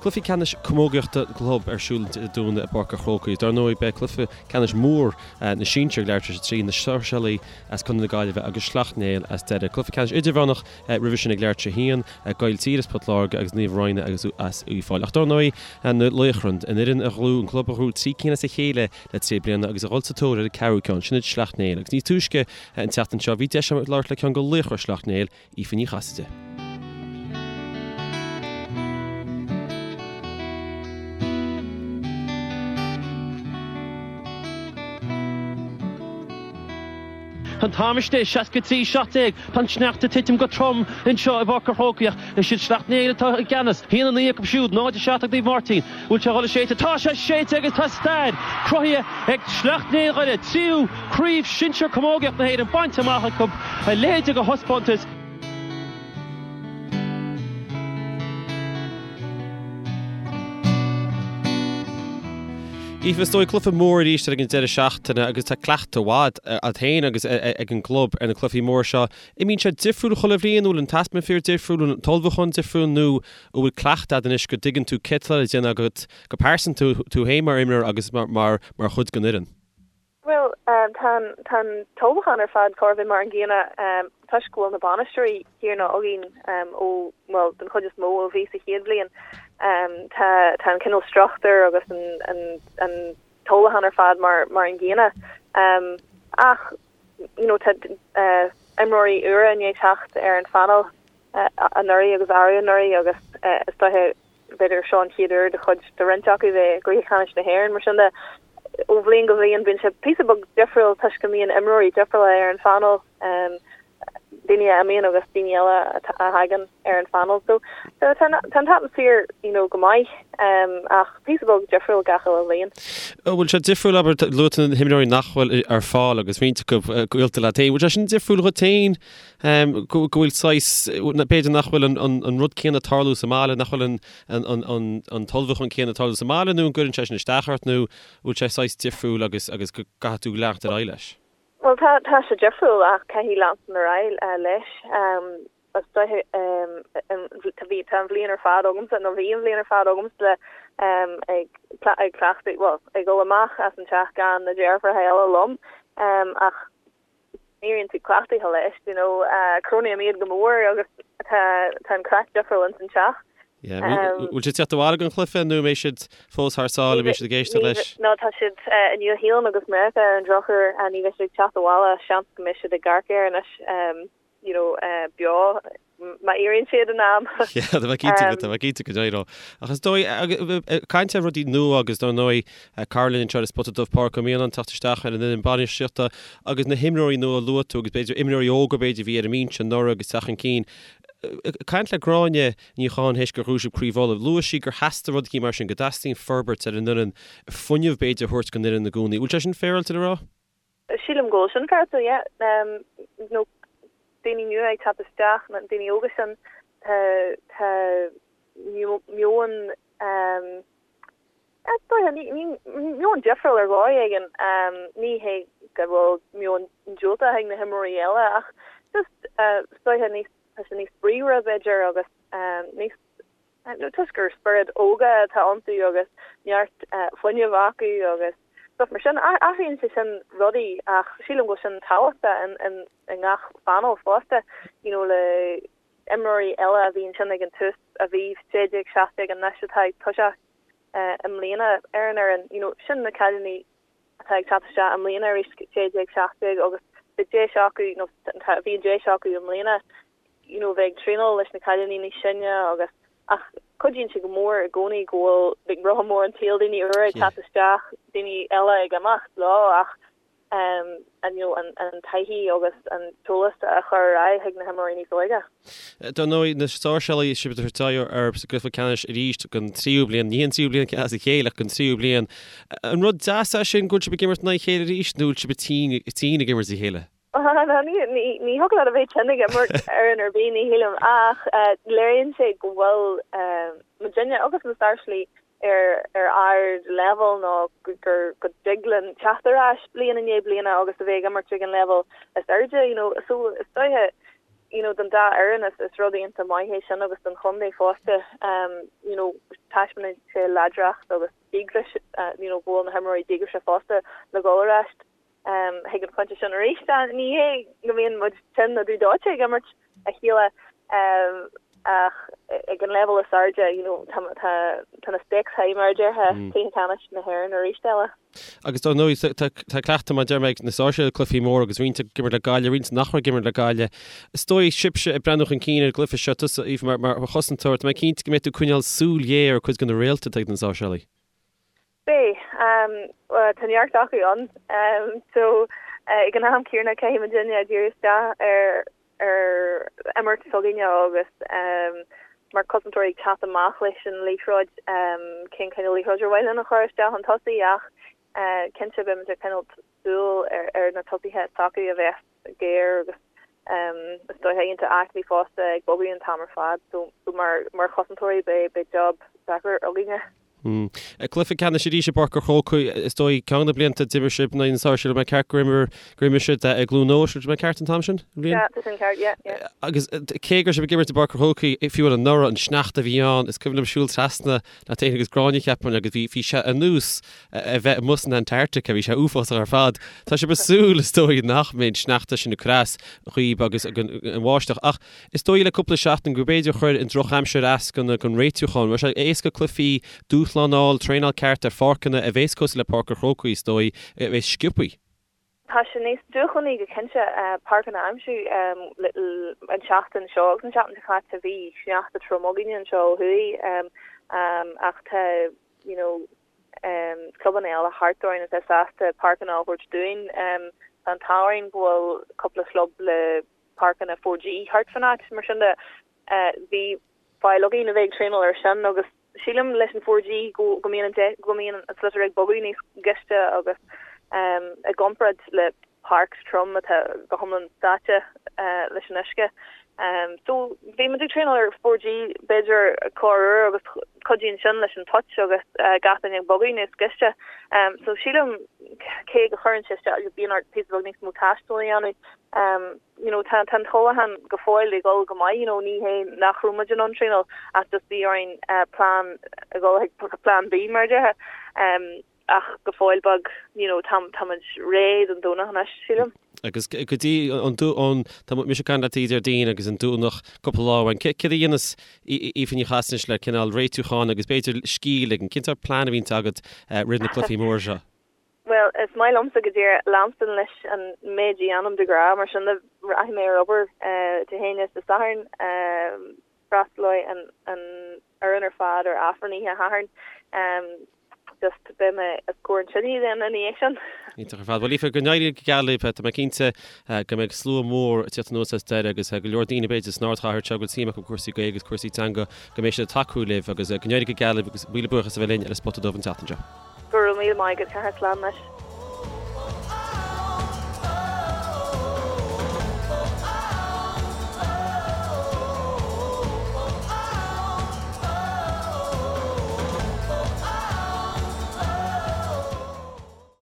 Cluichí ceannais camógaíochta club ar siúl Dé Domhnaigh i bPáirc an Chrócaigh. Dar ndóigh, beidh cluiche ceannais mór na sinsear ag leathuair tar éis a 3, na Sáirséalaigh as Contae na Gaillimhe agus Sleacht Néill as Doire. Cluiche ceannais idirmheánach roimhe sin ag leathuair tar éis a 1, Gailltír as Port Láirge agus Naomh Raghnall agus as Uíbh Fhailí. Ach dar ndóigh, na Laochra, an fhoireann a ghnóthaigh, an club a ghnóthaigh 3 cinn as a chéile le 3 bliana agus a dhul sa tóir ar an ceathrú ceann, sin iad Sleacht Néill. Agus níos túisce an tseachtain seo, bhí deis agam labhairt le ceann de laochra Shleacht Néill, Aoife Ní Chasaide. Tá an t-am istigh, 63, 17. Tá an sneachta ag titim go trom anseo i bPáirc an Chrócaigh ach is iad Sleacht Néill atá i gceannas. 1-9 acu siúd, 0-7 ag Naomh Máirtín. Bhfuil sé ag dul a séideadh? Tá sé séidte agus tá stair cruthaithe ag Sleacht Néill Dhoire. Tríú Craobh Shinsir Camógaíocht na hÉireann bainte amach acu. A leithéid de thaispeántas. Aoife, is dóigh cluiche mór arís ag an deireadh seachtaine agus tá cleachtadh mhaith agat féin agus ag an gclub ar na cluichí móra seo. An mbíonn sé difriúil chuile bhliain, an bhfuil an t-atmaisféar difriúil, an bhfuil an t-ullmhúchán difriúil nó an bhfuil cleachtadh agat anois go dtuigeann tú céard atá le déanamh agat go pearsanta, tú féin mar imreoir agus mar chuid den fhoireann? Bhuel, tá an tá an t-ullmhúchán ar fad chóir a bheith mar an gcéanna toisc go bhfuil na bainisteoirí céanna againn ó, bhuel, den chuid is mó ó bhí sa chéad bhliain. Tá tá an cineál struchtúr agus an an an t-ullmhúchán ar fad mar mar an gcéanna. Ach, you know, tá imreoirí úra i ndiaidh teacht ar an phainéal anuraidh agus arú anuraidh agus is dóiche B'fhéidir seo an chéad uair do chuid de roinnt acu bheith i gcluiche ceannais na hÉireann. Mar sin de, ó bhliain go bliain bíonn sé píosa beag difriúil toisc go mbíonn imreoirí difriúla ar an phainéal, daoine a imíonn agus daoine eile a thagann ar an phainéal. So tá an t-atmaisféar you know go maith ach píosa beag difriúil gach uile bhliain. An bhfuil sé difriúil, abair, luaigh tú na himreoirí nach bhfuil ar fáil agus roinnt acu gaolta leat féin, bhfuil sé sin difriúil dhuit féin go bhfuil saghas, b'fhéidir nach bhfuil an rud céanna ag tarlú sa mbaile, nach bhfuil an t-ullmhúchán céanna ag tarlú sa mbaile nó an gcuireann sé sin isteach ort nó bhfuil sé saghas difriúil agus agus go gcaithfidh tú leanacht ar aghaidh leis? Bhuel tá, tá sé difriúil ach caithfidh leanstan ar aghaidh leis. Is dóiche tá bhí, tá an bhliain ar fad agamsa nó bhí an bhliain ar fad agamsa ag ag cleachtadh, bhuel ag dul amach as an teach gan na deirfiúracha eile liom ach Éiríonn tú cleachtaithe leis, you know, cronaím iad go mór agus tá tá an craic difriúil ins an teach. Yeah, bhfuil siad ag teacht abhaile don chluiche nó an mbeidh siad fós thar sáile, an mbeidh siad ag éisteacht leis? No, tá siad i Nua Shéalainn agus Meiriceá ar an drochuair, ní bheidh siad ag teacht abhaile, seans go mbeidh siad ag amharc air anois. you know, beo má éiríonn siad in am. Yeah, tá mé cinnte go, tá mé cinnte go n-éireoidh. Ach is dóigh, ag caint ar rudaí nua agus dar ndóigh, cara linn anseo ar An Spota Dubh, Pádraic Ó Mianáin, teacht isteach ar an fhoireann bainistíochta agus na himreoirí nua a luaigh tú agus b'fhéidir imreoirí óga b'fhéidir a bhí ar an mbinse anuraidh agus teacht chun cinn. Ag caint le Gráinne Ní Chatháin théis gur ghnóthaigh sibh Craobh Uladh, luaigh sí gur theastaigh rud eicínt mar sin, go dteastaíonn forbairt ar an fhoireann, fuinneamh b'fhéidir a thabhairt don fhoireann i gcónaí. Bhfuil sé sin féaráilte le rá? Sílim go bhfuil sin féaráilte, yeah. You know, daoine nua ag teacht isteach, na daoine óga sin, tá, tá meon, is dóiche, ní, ní, meon difriúil ar dhóigh éigin. Ní hé go bhfuil meon diúltach ag na himreoirí eile ach just, is dóiche níos, tá sé níos bríomhaire b'fhéidir agus níos, Toisc gur spiorad óga atá iontu agus neart fuinnimh acu agus stuff mar sin. Athraíonn sé sin rudaí ach sílim go bhfuil sin tábhachtach i ngach phainéal fosta, you know le imreoirí eile a bhí ansin ag an tús a bhí 16, 17 anois atá ag toiseacht i mbliana ar an fhoireann, you know sin na cailíní atá ag teacht isteach i mbliana arís 16, 17 agus beidh deis acu nó bhí an deis acu i mbliana you know bheith ag traenáil leis na cailíní níos sine agus ach cuidíonn sé go mór i gcónaí go bhfuil like rotha mór an tsaoil daoine úra ag teacht isteach, daoine eile ag imeacht leo ach um an you know an an taithí agus an t-eolas a chur ar aghaidh chuig na himreoirí níos óige. Dar ndóigh, na Sáirséalaigh sibh ag tabhairt aghaidh orthu sa gcluiche ceannais arís don tríú bliain, ní an tríú bliain as a chéile ach don tríú bliain. An rud deas é sin go bhfuil sibh ag imirt in aghaidh a chéile arís nó bhfuil sibh tinn tinn ag imirt a chéile? Ní thiocfadh leat a bheith tinn ag imirt fhoireann ar bith, ní shílim, ach léiríonn sé go bhfuil muidinne agus na Sáirséalaigh ar ar ard-leibhéal nó gur go dtig linn teacht ar ais bliain i ndiaidh bliana agus a bheith ag imirt ag an leibhéal is airde, you know. So is dóiche. you know don dá fhoireann is is rud iontach maith é sin agus don chontae fosta you know taispeánann sé láidreacht agus díograis you know go bhfuil na himreoirí díograiseach fosta le dhul ar ais chuig an phointe sin arís. Ní hé go mbíonn muid tinn nó dubh dóite ag imirt a chéile ach ag an leibhéal is airde you know tá tá tá na stakes high mar a déarfá, Cluiche Ceannais na hÉireann arís eile. Agus dar ndóigh tá tá cleachtadh mar a deir mé ag na Sáirséalaigh cluichí móra agus roinnt ag imirt le Gaillimh, roinnt nach raibh ag imirt le Gaillimh. Is dóigh sibhse ag breathnú chun cinn ar an gcluiche seo, tusa Aoife mar mar chosantóir, tá mé cinnte go mbeidh tú ag coinneáil súil ghéar ar cuid de na réalta atá ag na Sáirséalaigh. Beidh. Tá neart acu ann. So ag an am céanna caithfidh muidinne díriú isteach ar ar imirt s'againne agus mar chosantóirí ag teacht amach leis an liathróid, cén cineál liathróid ar mhaith linn a chur isteach chun tosaigh ach cinnte beimid ag coinneáil súil ar na tosaithe s'acu a bheas géar agus is dóiche iontach aclaí fosta ag bogadh an t-am ar fad so mar chosantóirí beidh job deacair againne. Cluiche ceannais arís i bPáirc an Chrócaigh, is dóigh, ceann de na blianta a d'imir sibh in aghaidh na Sáirséalaigh, mé ceart gur imir, gur imir sibh i gCluain Eois, an mé ceart an t-am sin? An bhliain? Yeah, tá sin ceart, yeah, yeah. Agus cé go raibh sibh ag imirt i bPáirc an Chrócaigh, fiú anuraidh, an sneachta a bhí ann, is cuimhin liom siúl trasna leat féin agus Gráinne, cheapfainn, agus bhí, bhí sé ar nós a bheith amuigh san Antarctica, bhí sé uafásach ar fad. Tá sibh ag súil, is dóigh, nach mbeidh an sneachta sin ag cur as dhaoib agus an bháisteach. Ach Is dóigh le cúpla seachtain go b'fhéidir chuir an drochaimsir as don réitiúchán. Raibh sé éasca cluichí, dúshlán a fháil, traenáil ceart ar pháirceanna a bhéas cosúil le Páirc an Chrócaigh is dóigh, a bhéas sciobthaí. Tá sé níos dúshlánaí go cinnte páirceanna a aimsiú. An tseachtain seo agus an tseachtain seo caite bhí sneachta trom againne anseo ó thuaidh ach tá you know clubanna eile thart orainn atá sásta páirceanna a thabhairt dúinn. Tá an t-ádh orainn go bhfuil cúpla club le páirceanna 4G thart fan áit, mar sin de bhí fáil againn a bheith ag traenáil ar sin agus sílim leis an 4G go go mbíonn an go mbíonn an sliotar ag bogadh níos gaiste agus i gcomparáid le páirc trom atá go hiomlán sáite leis an uisce. So bhí muid ag traenáil ar 4G b'fhéidir corruair agus cuidíonn sin leis an touch agus gach duine ag bogadh níos gaiste. So sílim cé go chuireann sé isteach bíonn ort píosa beag níos mó taistil a dhéanamh you know tá tá an t-ullmhúchán go fóill ag dul go maith you know ní hé nach raibh muid in ann traenáil ach just bhí orainn plean a dhul chuig plean B mar a déarfá ach go fóill beag you know tá tá muid réidh don Domhnach anois sílim. Agus go dtí an an tá mise ag caint leat Déardaoin agus an Domhnach cúpla lá uainn. Céard a dhéanas Aoife Ní Chasaide anois le cineál réitiúcháin agus b'fhéidir scíth a ligean? Cén sórt plean a bhíonns agat roimh na cluichí móra seo? Bhuel, is maith liomsa go díreach leanstan leis an méid a dhéanaim de ghnáth, mar sin de rachaidh mé ar obair Dé hAoine is Dé Sathairn. Freastalóidh an fhoireann ar fad ar Aifreann oíche Shathairn. Just beidh mé os comhair an tine then ina dhiaidh sin. Iontach ar fad. Bhuel, Aoife, go n-éirí go geal libh. Tá mé cinnte go mbeidh slua mór ag tíocht anuas as Doire agus go leor daoine b'fhéidir san ardchathair seo go bhfuil suim acu i gcúrsaí Gaeilge agus cúrsaí teanga go mbeidh siad ag tacú libh agus go n-éirí go geal libh agus míle buíochas a bheith linn ar an Spota Dubh an tseachtain seo. Go raibh míle maith agat, Cathal. Slán anois.